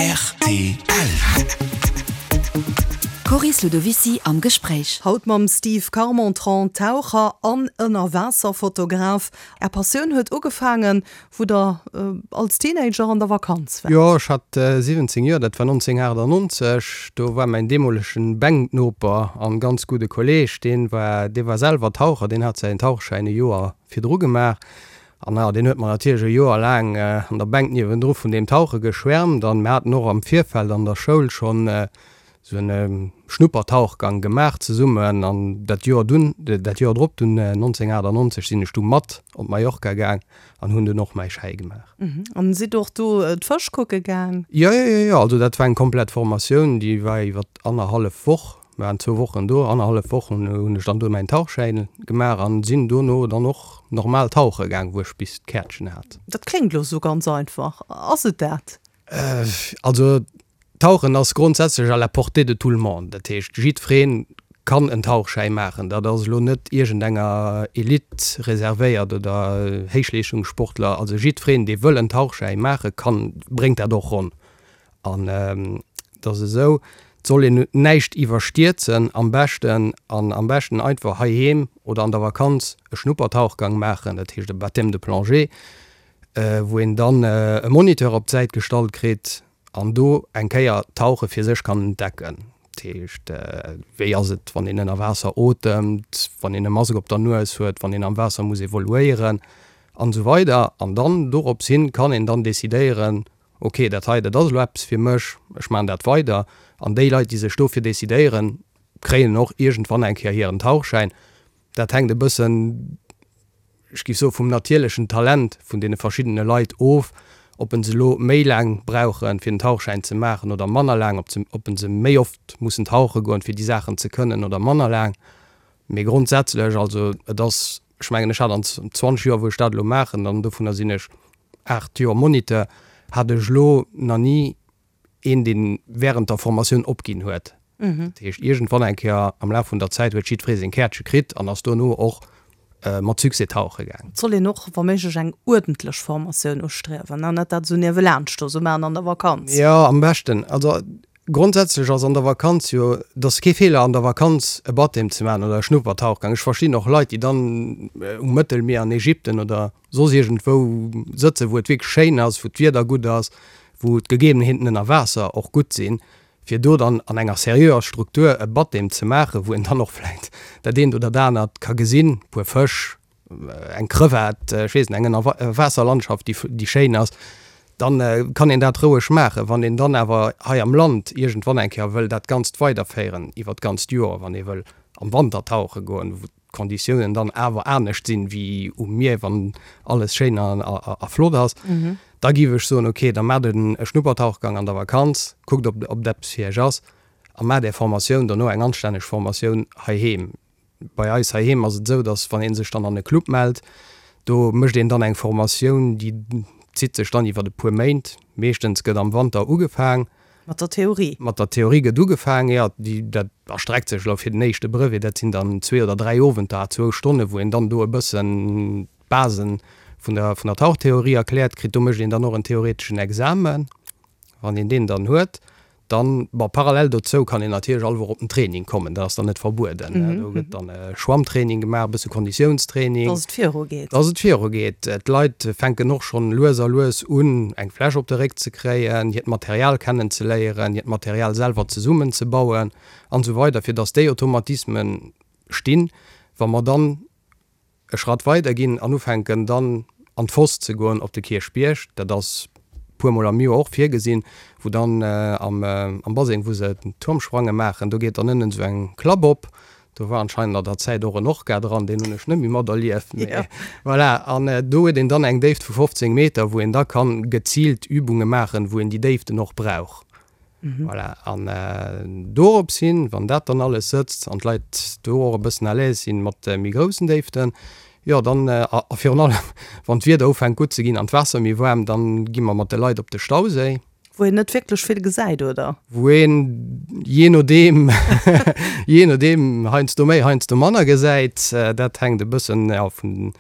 Rtl. D'Coris Ludovicy am Gespréich. Haut mam Steve Carmentran, Taucher an Ënnerwaasserfotograf. Är Passioun huet ugefaangen, wou der als Teenager an der Vakanz waart. Jo, ech hat 17 Joer, dat war 1998. Do war mäin deemolegen Bänknoper an ganz gudde Kolleeg, deen war, dee war selwer Taucher, deen hat säin Tauchschäin e Joer virdru gemaach. An jo, deen huet mer natierlech e Joer laang an der Bänk niewendru vun deem Tauche geschwärmt. An mir haten och am Virfeld an der Schoul schonn esou en Schnuppertauchgang gemaach zesummen. An dat Joer dunn, dat Joer drop dunn, 1998, sinn ech du mat op Mallorca gaang an hunn dunn och mäi Schäi gemaach. An sidd och do d'Fësch kucke gaang? Jo, jo, jo, jo. Also dat war eng komplett Formatioun, déi war iwwer annerhallef Woch. Mir waren zwou Wochen do, annerhallef Woch hunn ech dann do mäin Tauchschäin gemaach an sinn dono dann och normal tauche gaang, wou ech bis d'Käertchen hat. Dat kléngt elo sou ganz einfach, ass et dat? Also Tauchen ass grondsätzlech à la portée de tout le monde, dat heescht jiddweree kann en Tauchschäi maachen. Dat ass elo net iergendenger Elite reservéiert oder Héichleeschtungssportler, also jiddwereen dee wëll en Tauchschäi maache kann, bréngt dat och ronn. An et ass esou, et soll een näischt iwwerstierzen am beschten an am beschten einfach heiheem oder an der Vakanz e Schnuppertauchgang maachen, dat heescht e Baptême de plongée, wou een dann e Moniteur op d'Säit gestallt kritt an do eng Kéier d'Tauche fir sech kann entdecken. Dat heescht, wéi ass et, wann een ënner Waasser otemt, wann een e Mask op der Nues huet, wann een am Waasser muss evoluéieren an esou weider. An dann dorops hin kann een dann decidéieren, Ok, dat hei, dat ass elo eppes fir mech, ech maachen dat weider. An déi Leit, déi sech dofir decidéieren, kréien och iergendwann eng Kéier hiren Tauchschäin. Dat hänkt e bëssen, ech géif soen, vum natierlechen Talent vun deene verschiddene Leit of, ob en se elo méi laang brauchen, fir den Tauchschäin ze maachen oder manner laang, ob se, ob en se méi oft mussen tauche goen, fir déi Saachen ze kënnen oder manner laang. Mee grondsätzlech, also et ass, ech mengen, ech hat an 20 Joer, wou ech dat elo maachen, an dovunner sinn ech 8 Joer Moniteur, hat ech elo nach ni een, dee während der Formatioun opginn huet. Dat heescht, iergendwann eng Kéier am Laf vun der Zäit huet jiddweree seng Käertche kritt an ass dono och mat Succès tauche gaang. Et soll een och wa méiglech eng uerdentlech Formatioun ustriewen an net dat esou niewelaanscht do esou maachen an der Vakanz. Jo, am beschten. Also Grondsätzlech ass an der Vakanz jo, et ass kee Feeler an der Vakanz e Baptême ze maachen oder e Schnuppertauchgang. Ech verstinn och Leit, déi dann um Mëttelmier an Ägypten oder soss iergendwou sëtzen, wou et wierklech schéin ass, wou d'Wieder gutt ass, wou d'Gegebenheeten ënner Waasser och gutt sinn, fir do dann an enger seriöer Struktur e Baptême ze maachen, wou een dann och vläicht dat eent oder dat anert ka gesinn, e puer Fësch, eng Crevette, ech weess net, eng Ënnerwaasserlandschaft, déi, déi schéin ass, dann kann een dat roueg maachen. Wann een dann awer hei am Land iergendwann eng Kéier wëll dat Ganzt weiderféieren iwwer d'ganzt Joer, wann ee wëll am Wanter tauche goen, wou d'Konditiounen dann awer anescht sinn wéi um Mier, wann alles schéin a, a flott ass, da géif ech soen, okay, da maacht e Schnuppertauchgang an der Vakanz, kuckt, ob, ob dat eppes fir iech ass a maacht är Formatioun dono, eng anstänneg Formatioun heiheem. Bei eis heiheem ass et esou, datt wann ee sech dann an e Club mellt, do mécht een dann eng Formatioun, déi zitt sech dann iwwer e puer Méint. Meeschtens gëtt am Wanter ugefaang. Mat der Theorie? Mat der Theorie gëtt ugefaang, jo. Déi, dat erstreckt sech elo fir den éischte Brevet, dat sinn dann zwee oder dräi Owenter à zwou Stonnen, wou een dann do e bëssen d'Basen vun der, vun der Tauchtheorie erkläert kritt. Do mécht een dann och en theoreteschen Examen. Wann een deen dann huet, dann, bon, parallel dozou kann een natierlech all Woch op den Training kommen, dat ass dann net verbueden. Do gëtt dann Schwammtraining gemaach, e bësse Konditiounstraining. Dass et virugeet. Dass et virugeet. D'Leit fänken och schonn lues a lues un, eng Fläsch op de Réck ze kréien, hiert Material kennenzeléieren, hiert Material selwer zesummenzebauen an esou weider, fir dass déi Automatismen stinn, wa mer dann e Schratt weider ginn an ufänken dann an d'Foss ze goen op de Kierchbierg, dat ass puer mol am Joer och virgesinn, wou dann am am Baseng wou se d'Turmsprange maachen, do geet dann ënnen esou eng Klapp op, do war anscheinend an der Zäit och en Orca dran, deen hunn ech net méi materlieft, mee voilà. An do huet een dann eng Déift vu 15 Meter, wou een da kann geziilt Übunge maachen, wou een déi Déiften och brauch. Voilà, an dorops hin, wann dat dann alles sëtzt an d'Leit do och e bëssen à l'aise sinn mat méi groussen Déiften, jo dann, a virun allem wann d'Wieder ufänkt gutt ze ginn an d'Waasser méi waarm, dann gi mer mat de Leit op de Stauséi. Wou een net wierklech vill gesäit, oder? Wou een jee nodeem, jee nodeem heiansdo méi, heiansdo manner gesäit. Dat hänkt e bëssen, jo, vun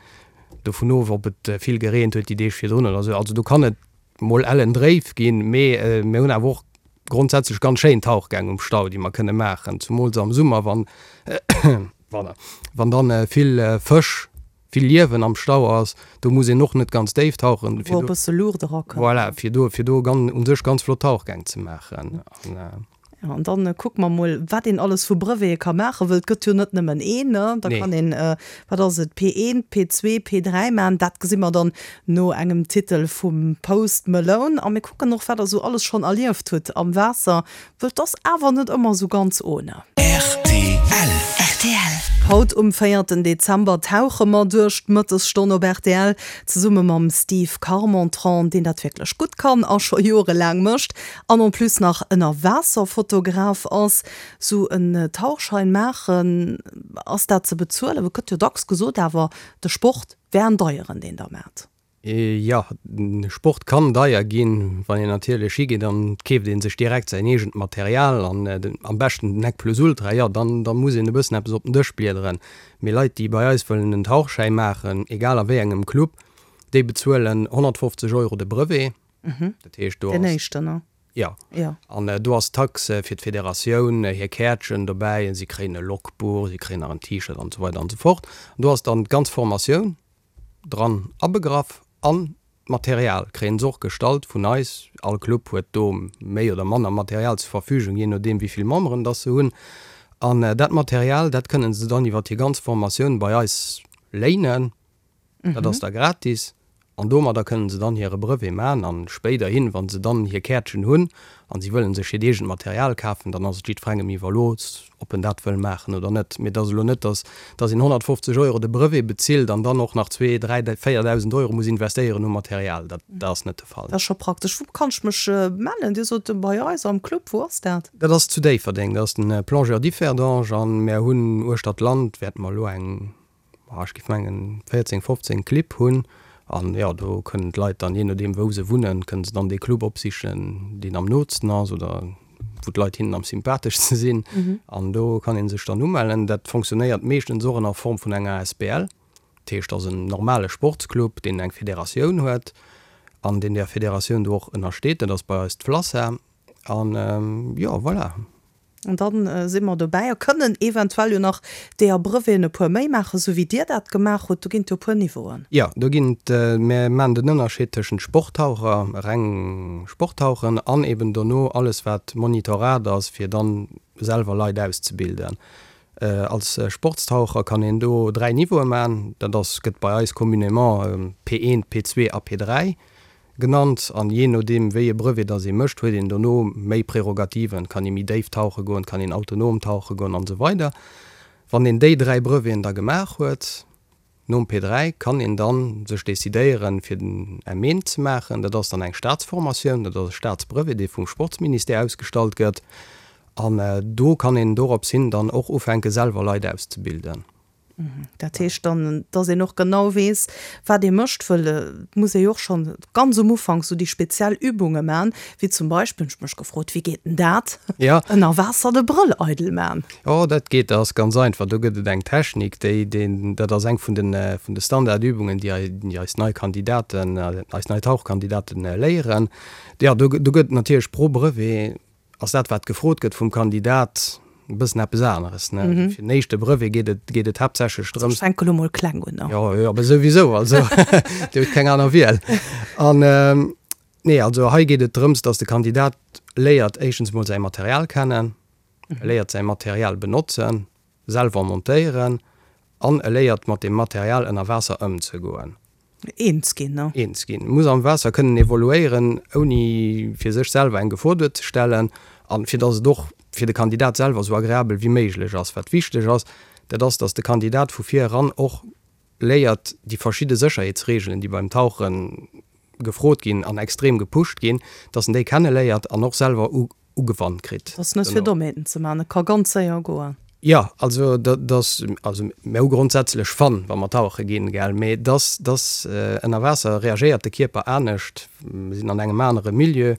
dovun of, ob et vill gereent huet déi Deeg virdrun oder esou. Also do kann et. mol ellen dréif ginn, mee mir hunn awer och grondsätzlech ganz schéin Tauchgäng um Stau, déi mer kënne maachen, zumools am Summer, wann, wann dann vill Fësch, vill Liewen am Stau ass. Do muss een och net ganz déif tauchen, fir do, wou e bësse Luucht erakënnt. Voilà, fir do, fir do u sech ganz flott Tauchgäng ze maachen. Jo, an dann kucke mer mol, wat een alles vu Brevete ka maachen, wëll et gëtt jo net nëmmen een, ne? Da kann een, wat ass et, P1, P2, P3 maachen. Dat gesi mer dann no engem Titel vum Post Malone. A mir kucken och, wat der esou alles schonn erlieft hutt am Waasser, wëll 't ass awer net ëmmer esou ganz ohne. Rtl. Rtl. Haut um véierten Dezember tauche mer duerch d'Mëttesstonn op rtl, zesumme mam Steve Carmentran, deen dat wierklech gutt kann a scho jorelaang mécht. An en plus nach Ënnerwaasserfotograf ass. Sou en Tauchschein maachen, ass dat ze bezuelen? Et gëtt jo dacks gesot awer, de Sport wär en deieren, deen der maacht. Jo, Sport kann deier ginn. Wann een natierlech higeet an et keeft ee sech direkt säin eegent Material an am beschten den Nec plus ultra, jo dann da muss een e bëssen eppes op den Dësch bliederen. Mee Leit, déi bei eis wëllen en Tauchschäi maachen, egal a wéi engem Club, déi bezuelen 150 Euro de Brevet. Dat heescht, do Den ass. éischten, ne? Jo. Jo. An do ass d'Taxe fir d'Federatioun, hir Käertchen dobäi, si kréien e Logbuch, si kréien nach en T-Shirt an esou weider an esou fort. An do ass dann d'ganz Formatioun dran abegraff an d'Material kréien se och gestallt vun eis. All Club huet do méi oder manner Material zur Verfügung, jee nodeem wéi vill Memberen dass se hunn. An dat Material, dat kënnen se dann iwwer hir ganz Formatioun bei eis léinen. Dat ass da gratis an domadder kënnen se dann hire Brevet man an spéiderhin, wa se dann hir Käertchen hunn an si wëllen sech hiert eegent Material kafen, dann ass et jiddferengem iwwerlooss, ob en dat wëll maachen oder net. Mee et ass elo net, dass dass een 150 Euro de Brevet bezilt an dann och nach zwee, dräi, 4.000 Euro muss investéieren u Material. Dat ass net de Fall. Dat ass scho praktesch. Wou kann ech mech mellen? Dir sot bei eis am Club. Wou ass dat? Dat ass zu Déifferdeng. Dat ass den Plongeur Differdange an mär hunn uechter d'Land wäerte mer elo eng ech géif mengen 14, 15 Clibb hunn an jo, do kënnen d'Leit dann, jee nodeem wou se wunnen, kënnen se dann dee Club opsichen, deen am nootsten ass oder wou d'Leit hinnen am sympatheschste sinn an do kann ee sech dann umellen. Dat fonctionnéiert meeschtens och ënner Form vun enger asbl, dat heescht, ass en normale Sportsclub, deen eng Federatioun huet an deen där Federatioun do och ënnersteet, dat ass bei eis d'FLASA an jo, voilà. An dann si mer dobäi a kënnen eventuell jo nach deeër Breveten e puer méi maachen, esou wéi Dir dat gemaach hutt. Do ginn et jo e puer Niveauen. Jo, do ginn et, mir maachen den Ënnerscheed tëschent Sporttaucher, reng Sporttauchen, an eben dono alles wat Monitorat ass, fir dann selwer Leit auszebilden. Als Sportstaucher kann een do 3 Niveaue maachen, dat ass, gëtt bei eis communément P1, P2 a P3. Genannt, an jee nodeem wéi e Brevet dass ee mécht, huet een dono méi Prärogativen, kann ee méi déif tauche goen, kann een autonom tauche goen an esou weider. Wann een déi 3 Breveten da gemaach huet, nom P3, kann een dann sech decidéieren fir den M1 ze maachen. Dat ass dann eng Staatsformatioun, dat ass e Staatsbrevet dee vum Sportsministère ausgestallt gëtt, an do kann een dorops hin dann och ufänke selwer Leit auszebilden. Dat heescht dann, dass een och genau weess, wat ee mécht, wëll et muss ee jo och schonn ganz um Ufank sou déi speziell Übunge man, wéi zum Beispill, hunn ech mech gefrot, wéi geet denn dat, ënner Waasser de Brëll eidel man? Jo, dat geet, dat ass ganz einfach. Do gëtt et eng Technik, déi, déi, dat ass eng vun den, vun de Standardübungen, déi déi eis nei Kandidaten, eis nei Tauchkandidaten léieren. Jo, do, do gëtt et natierlech pro Brevet ass dat, wat gefrot gëtt vum Kandidat, e bëssen eppes aneres. Ne? Mm -hmm. Fir den éischte Brevet geet et, geet et haaptsächlech drëms. Ech fänke lo mol kleng un. Ne? Jo, jo, awer souwisou, also Dir hutt keng aner Wiel. An ähm, nee, also hei geet et drëms, dass de Kandidat léiert éischtens mol säi Material kennen, mm -hmm. léiert säi Material benotzen, selwer montéieren an e léiert mat dem Material ënner Waasser ëmzegoen. Eens ginn, ne? Eens ginn. Muss am Waasser kënnen evoluéieren, ouni fir sech selwer eng Gefor duerzestellen an fir dass et och fir de Kandidat selwer esou agreabel wéi méiglech ass. Wat wichteg ass, dat ass, dass de Kandidat vu vir eran och léiert, déi verschidde Sécherheetsreegelen, déi beim Tauche gefrot ginn an extrem gepusht ginn, dass en déi kenneléiert an och selwer ugewannt kritt. Ass net fir Dommheeten ze man, et ka ganz séier goen. Jo, also dat ass, also mir hu grondsätzlech Fun, wa mer tauche ginn, gell, mee dass, dass ënner Waasser reagéiert de Kierper anescht, mir sinn an engem anere Milieu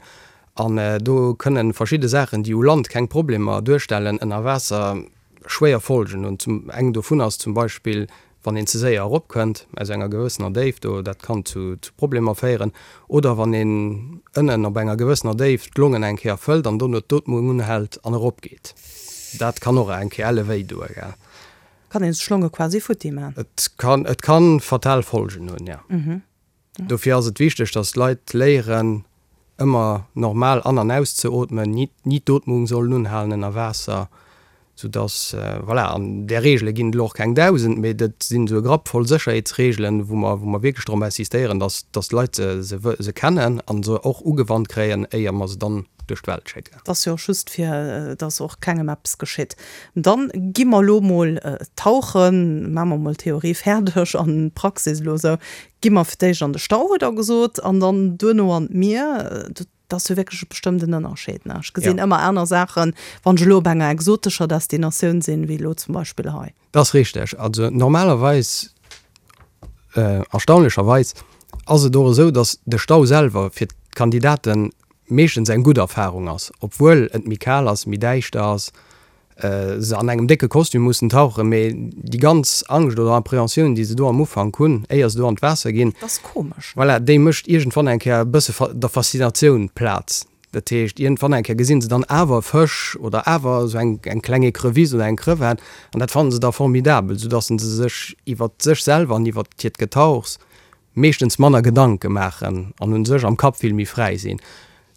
an do kënne verschidde Saachen, déi u Land keng Problemer duerstellen, ënner Waasser schwéier Folgen hunn. Zum, eng dovun ass zum Beispill,. Wann een ze séier eropkënnt aus enger gewëssener Déift, do, dat kann zu Problemer féieren. Oder wann een ënnen op enger gewëssener Déift d'Longen eng Kéier fëllt an dono d'Ootmung unhält an eropgeet. Dat kann och eng Kéier elle wéi doe, gell. Kann een sech d'Longe quasi futti man. Et kann, et kann fatal Folgen hunn, jo. Dofir ass et wichteg, dass d'Leit léieren, ëmmer normal an an auszeootmen, ni ni d'Ootmung sollen unhalen ënner Waasser, soudass, voilà, an där Reegele ginn et elo och keng 1.000, mee dat sinn esou e Grapp voll Sécherheetsreegelen, wou mer wou mer wierklech drop insistéieren, dass dass d'Leit se se se kennen a se och ugewannt kréien, éier mer se dann duerch d'Welt schécken. Et ass jo och just fir dass och kengem eppes geschitt. Dann gi mer elo mol tauchen, maache mer mol d'Theorie fäerdeg an d'Praxis elo esou. Gi mer fir d'éischt an de Stau, hutt Der gesot, an dann duerno an d'Mier. Dat ass jo wierklech e bestëmmten Ënnerscheed, ne? Ech gesinn ëmmer aner Saachen, wann ech elo op enger exotescher Destinatioun sinn, wéi elo zum Beispill hei. Dat ass richteg. Also normalerweis, erstaunlecherweis, ass et och esou, datt de Stau selwer fir d'Kandidaten meeschtens eng gutt Erfarung ass, obwuel et méi kal ass, méi däischter ass, se an engem décke Kostüm mussen tauchen, mee déi ganz Angscht oder Appréhensioun, déi se do am Ufank hunn, éier se do an d'Waasser ginn, Dat ass komesch. voilà, déi mécht iergendwann eng Kéier e bësse der Faszinatioun Plaz. Dat heescht, iergendwann eng Kéier gesinn se dann awer e Fësch oder awer esou eng eng kleng Ecrevisse oder eng Crevette an dat fannen se da formidabel, soudass se sech iwwert sech selwer an iwwert hiert Getauchs meeschtens manner Gedanke maachen an u sech am Kapp vill méi fräi sinn.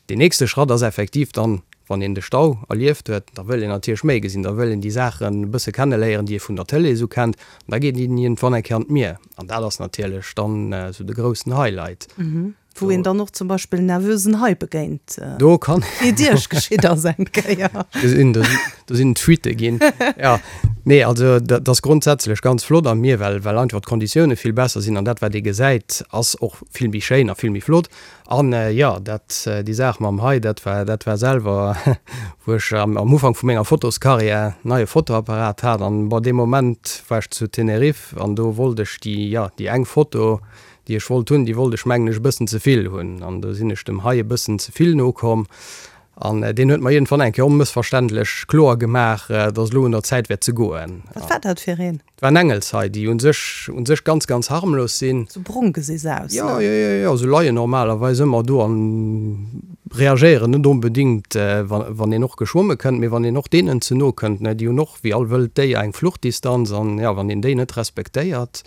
Deen nächste Schratt ass effektiv dann, wann een de Stau erlieft huet, da wëll een natierlech méi gesinn, da wëll een déi Saachen e bësse kenneléieren, déi ee vun der Tëlee esou kennt. An da geet een iergendwann eng Kéier an d'Mier an dat ass natierlech dann esou de groussen Highlight. Wou een dann och zum Beispill nervösen Hai begéint. Do kann. Wéi et Iech geschitt ass eng Kéier. Gesinn, do sinn, do sinn Fuitte ginn. Jo, nee, also dat ass grondsätzlech ganz flott am Mier, well, well einfach d'Konditioune vill besser sinn an dat, wat ee gesäit, ass och vill méi schéin a vill méi flott. An jo, dat, déi Saach mam Hai, dat war, dat war selwer, wou ech am, am Ufank vu menger Fotoskarriär neie Fotoapparat hat an, bon, dee Moment war ech zu Tenerife an do wollt ech déi, jo, déi eng Foto, déi ech wollt hunn, déi wollt ech mengen ech e bëssen ze vill hunn an do sinn ech dem Hai e bëssen ze vill no komm an deen huet mer iergendwann eng Kéier onmëssverständlech kloer gemaach, dass elo un der Zäit wär ze goen. Wat war dat fir een? Et waren Engelshai, déi un sech, un sech ganz, ganz harmlos sinn. Sou brong gesi se aus, ne? Jo, jo, jo, jo, se leien normalerweis ëmmer do an reagéieren net onbedingt, wa, wann een och geschwomme kënnt, mee wann een och deenen ze no kënnt, ne, déi hunn och wéi all wëllt Déier eng Fluchtdistanz an, jo, wann een déi net respektéiert,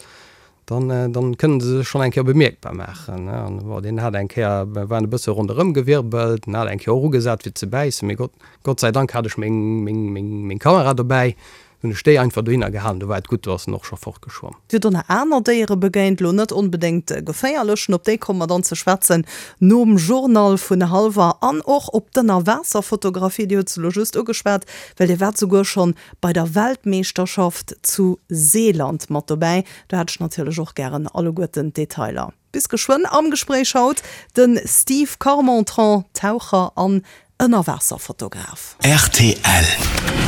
dann, dann kënnen se sech schonn eng Kéier bemierkbar maachen, ne. An bon, deen hat eng Kéier, war en e bësse ronderëm gewirbelt, en hat eng Kéier och ugesat fir ze bäissen, mee Gott, Gott sei Dank hat ech meng, meng, meng, meng Kamera dobäi, Hunn ech déi einfach dohinner gehalen, do war et gutt, do ass en och scho fortgeschwomm. Dir hutt och nach aner Déiere begéint, elo net onbedéngt geféierlechen, op déi komme mer dann ze schwätzen nom Journal vun hallwer an och op d'Ënnerwaasserfotografie, Dir hutt se elo just ugeschwat, well Dir waart souguer schonn bei der Weltmeeschterschaft zu Seeland mat dobäi. Do hätt ech natierlech och gären alleguerten d'Detailer. Bis geschwënn am Gespréich haut de Steve Carmentran, Taucher an Ënnerwaasserfotograf. Rtl.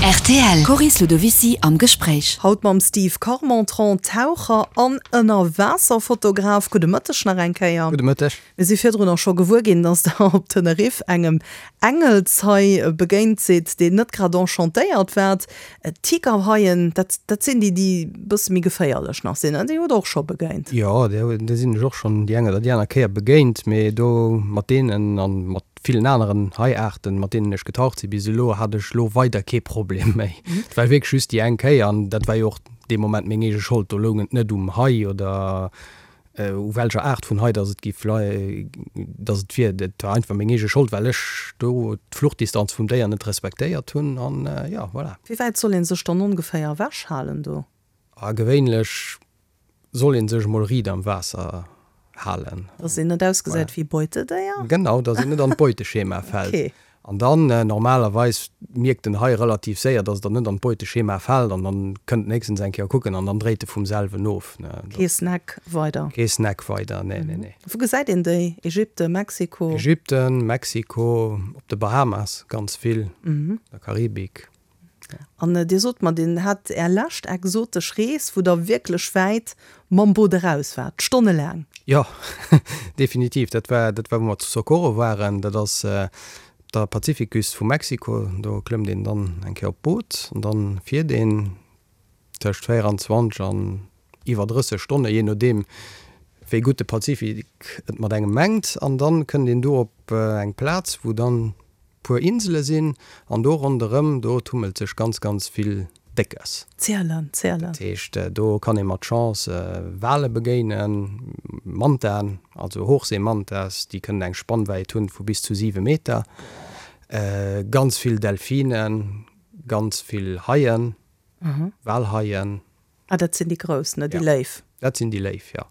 Rtl, Coris Ludovicy am Gespréich. Haut mam Steve Carmentran, Taucher an Ënnerwaasserfotograf. Gudde Mëtteg nach eng Kéier. Gudde Mëtteg. Mir si virdrun och scho gewuer ginn, dass Der op Teneriff engem Engelshai begéint sidd, deen net grad enchantéiert waart. Tigerhaien, dat, dat sinn déi, déi e bësse méi geféierlech nach sinn, ne? Déi hutt Der och scho begéint? Jo, déi sinn ech och schonn déi eng oder déi aner Kéier begéint, mee do mat deenen a mat villen aneren Haiaarten, mat deenen ech getaucht si bis elo, hat ech elo weider kee Problem méi. Et war wierklech just déi eng Kéier an dat war jo och dee Moment meng eege Schold. Do loung et net um Hai oder u welcher Aart vun Hai dass et giff dass et wier. Et war einfach meng eege Schold, well ech do d'Fluchtdistanz vum Déier net respektéiert hunn an jo, voilà. Wéi wäit soll een sech dann ongeféier ewech halen do? A gewéinlech soll een sech emol riit am Waasser halen. Dass een net ausgesäit wéi Beutedéier? Genau, dass een net an d'Beuteschema fält. Okay. An dann, normalerweis mierkt den Hai relativ séier, dass der net an d'Beuteschema fält an dann kënnt en héchstens eng Kéier kucken an dann dréit e vum selwen of. Kee Snack weider? Kee Snack weider, nee, nee, nee. Wou gesäit een déi? Ägypten, Mexiko? Ägypten, Mexiko, op de Bahamas ganz vill, der Karibik. An Dir sot mer, Dir hat Är lescht exotesch Rees, wou Der wierklech wäit mam Boot eraus waart, stonnelaang. Jo, definitiv. Dat war, dat war wou mer zu Socorro waren. Dat ass op der Pazifikküst vu Mexiko. Do klëmmt een dann eng Kéier op d'Boot an dann fiert een tëscht 24 an. iwwer 30 Stonne, jee nodeem wéi gutt de Pazifik et mat engem mengt. An dann kënnt een do op eng Plaz, wou dann puer Insele sinn an do ronderëm, do tummelt sech ganz, ganz vill Déckes. Zielen, zielen. Dat heescht, do kann ee mat Chance Wale begéinen, Mantaen, also Hochseemantas, déi kënnen eng Spannwäit hunn vu bis zu 7 Meter, ganz vill Delfinen, ganz vill Haien, Walhaien. Ah, dat sinn déi grouss, ne? Déi Léif. Dat sinn déi Léif, jo.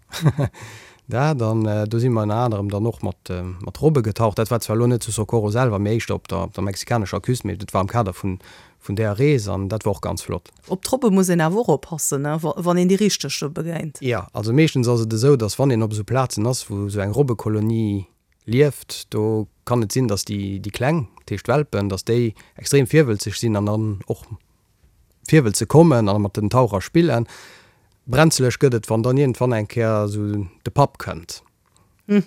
Dat, an do si mer ënner anerem dann och mat, mat Robbe getaucht. Dat war zwar elo net zu Socorro selwer, mee éischter op der, op der mexikanescher Küst, mee dat war am Kader vun, vun där Rees an dat war och ganz flott. Op d'Robbe muss een awer och oppassen, ne, wann een déi richteg do begéint. Jo, also meeschtens ass et esou, dass wann een op esou Plazen ass, wou esou eng Robbekolonie lieft, do kann et sinn, dass déi, déi Kleng, dat heescht d'Welpen, dass déi extrem virwëlzeg sinn an dann och Virwëll ze kommen a mat den Taucher spillen. Brenzeleg gëtt et, wann dann iergendwann eng Kéier esou de Papp kënnt.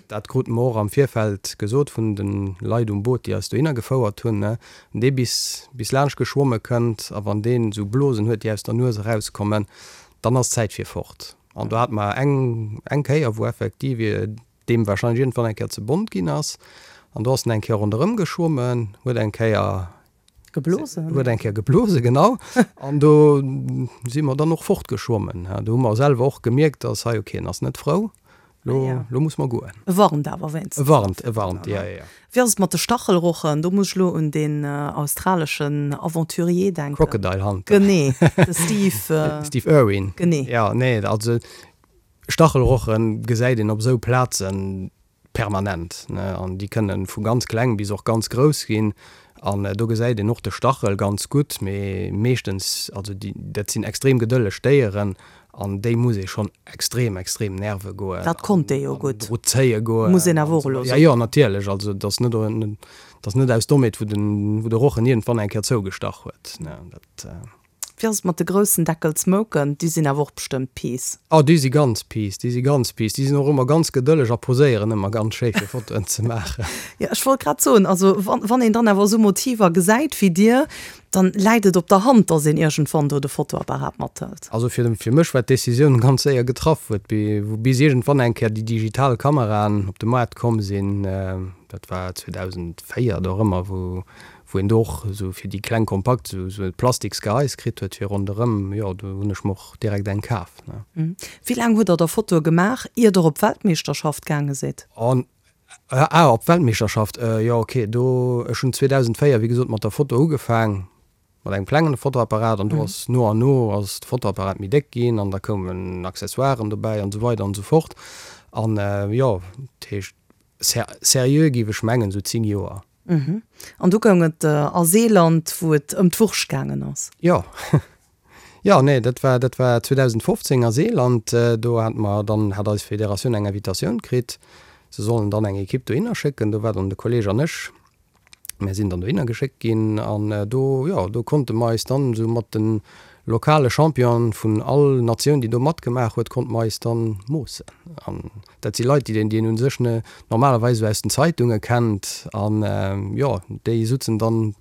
Dat krute mer och am Virfeld gesot vun de Leit um Boot, déi eis dohinner gefouert hunn. Wann dee bis bis laanscht geschwomme kënnt a wann deen esou Blosen huet, déi aus der Nues erauskommen, dann ass Zäit fir fort. An do hate mer eng eng Kéier, wou effektiv deem warscheinlech iergendwann eng Kéier ze bont ginn ass, an do ass en eng Kéier ronderëm geschwommen, huet eng Kéier Geblosen? Huet eng Kéier geblose, genau. An do si mer dann och fortgeschwommen. Do hu mer selwer och gemierkt, dass hei, okay, en ass net frou, lo, lo muss mer goen. E warnt awer wéinstens. E warnt, e warnt, jo, jo, jo. Wéi ass et mat de Stachelrochen? Do muss ech elo un deen australeschen Aventurier denken. Crocodile Hunter. Genee, de Steve. Steve Irwin. Genee. Jo, nee, also Stachelroche gesäit een op esou Plazen permanent, ne, an déi kënne vu ganz kleng bis och ganz grouss ginn an do gesäit een och de Stachel ganz gutt, mee meeschtens, also déi, dat sinn extrem gedëlleg Déieren an déi muss ee schonn extrem, extrem nerve goen. Dat konnt dee jo gutt, an dru zéie goen. Muss een awer och elo soen. Jo, jo, natierlech, also et ass net, et ass net aus Dommheet, wou den, wou de Rochen iergendwann eng Kéier zougestach huet, ne, dat. Wéi ass et mat de groussen Deckelsmouken? Déi sinn awer och bestëmmt peace. Oh, déi si ganz peace, déi si ganz peace. Déi sinn och ëmmer ganz gedëlleg a poséieren ëmmer ganz schéi fir Fotoen ze maachen. Jo, ech wollt grad soen, also wann, wann een dann awer esou Motiver gesäit wéi dir, dann läit et op der Hand, dass een iergendwann do de Fotoapparat mathëlt. Also fir, fir mech war d'Decisioun ganz séier getraff, wou et, wou bis iergendwann eng Kéier déi digital Kameraen op de Moart komm sinn, dat war 2004 dorëmmer, wou, wou een do och esou fir déi kleng kompakt esou esou e plastiks Gehais kritt huet fir ronderëm, jo do hunn ech mer och direkt eng kaf, ne. Wéi laang hutt der da Fotoe gemaach, ier der op d'Weltmeeschterschaft gaange sidd? An, ah op d'Weltmeeschterschaft, jo ok, do, ech hunn 2004 wéi gesot mat der Foto ugefaang, mat engem klengen Fotoapparat an do ass no an no ass de Fotoapparat méi déck ginn an da koumen Accessoiren dobäi an esou weider an esou fort an jo, dat heescht seriö géif ech mengen esou 10 Joer. An du goung et a Seeland, wou et ëm d'Wurscht gaangen ass. Jo. Jo, nee, dat war, dat war 2015 a Seeland. Do hate mer dann, hat eis Federatioun eng Invitatioun kritt, se sollen dann eng Ekipp dohinner schécken. Do war dann de Kolleg an ech. Mär sinn dann dohinner geschéckt ginn an do, jo, do konnte mer eis dann esou mat de lokale Championen vun all Natioun, déi do matgemaach huet, konnte mer eis dann moossen. An Dat si Leit, déi een u sech normalerweis esou aus den Zeitunge kennt. An jo, déi sutzen dann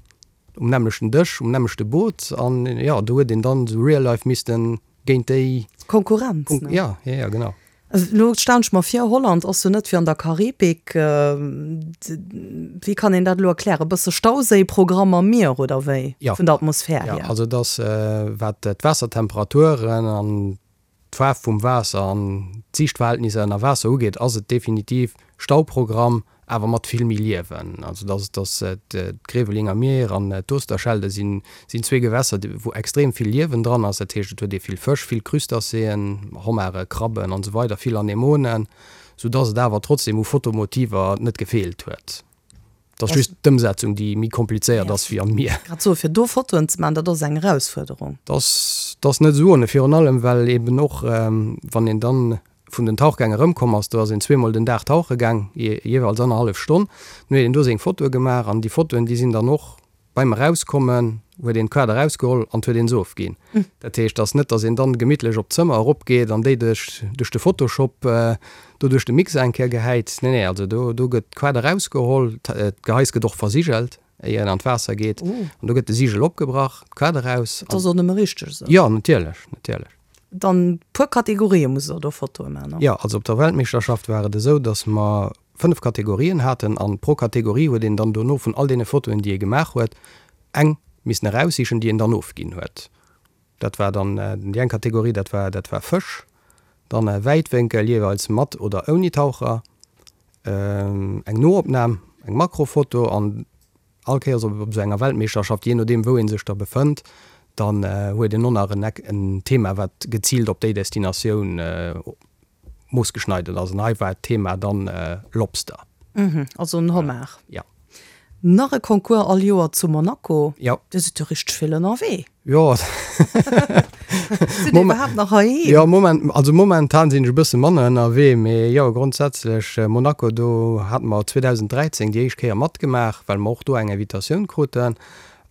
um nämmlechten Dësch, um nämmlechte Boot. An jo, do huet een dann esou real life misste géint déi. Konkurrenz, ne? Ja, ja, ja, genau. Elo stellen ech mer vir, Holland ass jo net wéi an der Karibik. Wéi kann een dat elo erklären? E bësse Stauséiprogramm am Mier oder wéi? Vun der Atmosphär hier? Jo, also et ass, wat d'Waassertemperaturen an d'Faarf vum Waasser an d'Siichtverhältnisser ënner Waasser ugeet, ass et definitiv Stauprogramm, awer mat vill méi Liewen. Also dass dass d'Grevelinger Mier an d'Oosterschelde sinn sinn zwee Gewässer, wou extrem vill Liewen dran ass. Dat heescht, et huet ee vill Fësch, vill Crustacéen, Hommare, Krabben an esou weider, vill Anemonen, sou dass et awer trotzdem u Fotomotiver net gefeelt huet. Et ass just d'Ëmsetzung, déi méi komplizéiert ass wéi am Mier. Grad soe fir do Fotoen ze maachen, dat ass eng Erausfuerderung. Dat ass, dat ass net esou ohne, virun allem well eben och, wann een dann vun den Tauchgäng erëmkomm ass, do ass een zweemol den Dag tauche gaang, jeeweils annerhallef Stonn, dann huet een do seng Fotoe gemaach an déi Fotoen, déi sinn dann och Beim Erauskommen huet een d'Kaart erausgeholl an huet een se ofginn. Dat heescht, ass net, dass een dann gemittlech op d'Zëmmer eropgeet an déi duerch duerch de Photoshop do duerch de Mixer eng Kéier gehäit. Nee, nee, also do do gëtt d'Kaart erausgeholl, d'Gehais gëtt och versigelt, éier een an d'Waasser geet. An do gëtt de Sigel opgebrach, d'Kaart eraus. Dat ass och nëmme richteg esou. Jo, natierlech, natierlech. Dann puer Kategorië musst der do Fotoe maachen, ne? Jo, also op der Weltmeeschterschaft war et esou, dass mer 5 Kategorien haten an pro Kategorie huet een dann dono vun all deene Fotoen, déi ee gemaach huet, eng missen eraussichen, déi een dann ofginn huet. Dat war dann déi eng Kategorie, dat war dat war Fësch, dann Wäitwénkel, jeeweils mat oder ouni Taucher, eng Noopnam, eng Makrofoto an All Kéiers op esou enger Weltmeeschterschaft, jee nodeem wou ee sech da befënnt, dann huet een och nach en Thema wat geziilt op déi Destinatioun moossgeschneidert ass. An hei war d'Thema dann Lobster. Also en Homard. Jo. Nach e Concours all Joer zu Monaco. Jo. Dir sidd jo richteg vill ënnerwee. Jo. Sidd Dir iwwerhaapt nach heiheem? Jo, moment, also momentan sinn ech e bësse manner ënnerwee, mee jo, grondsätzlech Monaco, do hate mer 2013 déi éischt Kéier matgemaach, well mer och do eng Invitatioun kruten.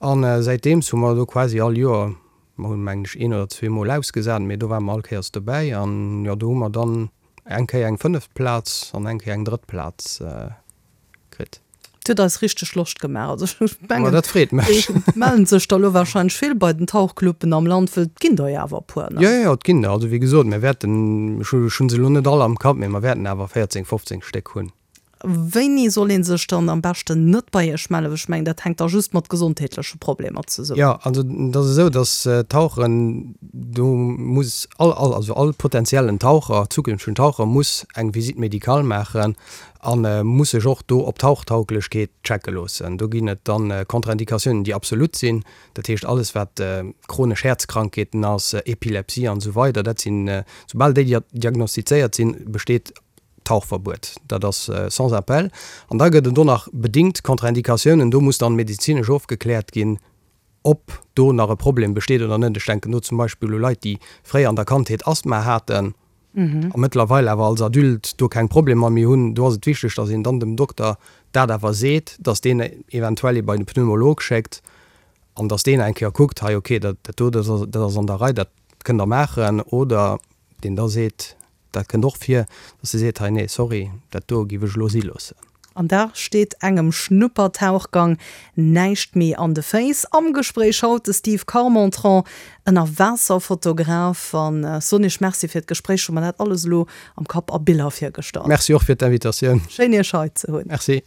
An säitdeems hu mer do quasi all Joer, mer hunn mengen ech een oder zweemol ausgesat, mee do ware mer all Kéiers dobäi. An jo, do hu mer dann eng Kéier eng fënneft Plaz an eng Kéier eng drëtt Plaz kritt. Et huet eis richteg Loscht gemaach. Also ech mengen, Ma dat freet mech. Et mellen sech der elo wahrscheinlech vill bei den Tauchcluben am Land, wëll et ginn der jo awer e puer, ne? Jo, jo, et ginn der. Also wéi gesot, mir wäerten, ech hu se elo net all am Kapp, mee mer wäerten awer 14, 15 Stéck hunn. Wéini soll ee sech dann am beschten net bei Iech mellen? Well ech mengen, dat hänkt da just mat gesondheetleche Problemer zesummen. Jo, also et ass esou, datt Tauchen, do muss all, all, also all potentiellen Taucher, zukünftegen Taucher muss eng Visite médicale maachen A muss sech och do op Tauchtauglechkeet checke loossen. Do ginn et dann Contre-indicatiounen, déi absolut sinn. Dat heescht alles wat chronesch Häerzkrankheeten ass, Epilepsie an esou weider, dat sinn, soubal déi diagnostizéiert sinn, besteet Tauchverbuet. Dat ass sans appel. An da gëtt et och nach bedingt Contre-indicatiounen, do muss dann medezinesch ofgekläert ginn, ob do nach e Problem besteet oder net. Ech denken do zum Beispill u Leit, déi fréier an der Kandheet Asthma haten a mëttlerweil awer als Adulte do keng Problemer méi hunn. Do ass et wichteg, dass een dann dem Dokter dat awer seet, dass deen eventuell ee bei de Pneumolog schéckt an dass deen eng Kéier kuckt, hei okay, dat do, dat ass an der Rei, dat kënnt Der maachen. Oder deen da seet, Dat kënnt och vir, dass se seet, hei nee, sorry, dat do giff ech elo si loossen. An da steet engem Schnuppertauchgang näischt méi an de Féiss. Am Gespréich haut de Steve Carmentran, Ënnerwaasserfotograf. An soen Iech Merci fir d'Gespréich, hu mer dat alles elo am Kapp a Biller virgestallt. Merci och fir d'Invitatioun. Schéin Iech hei ze hunn. Merci.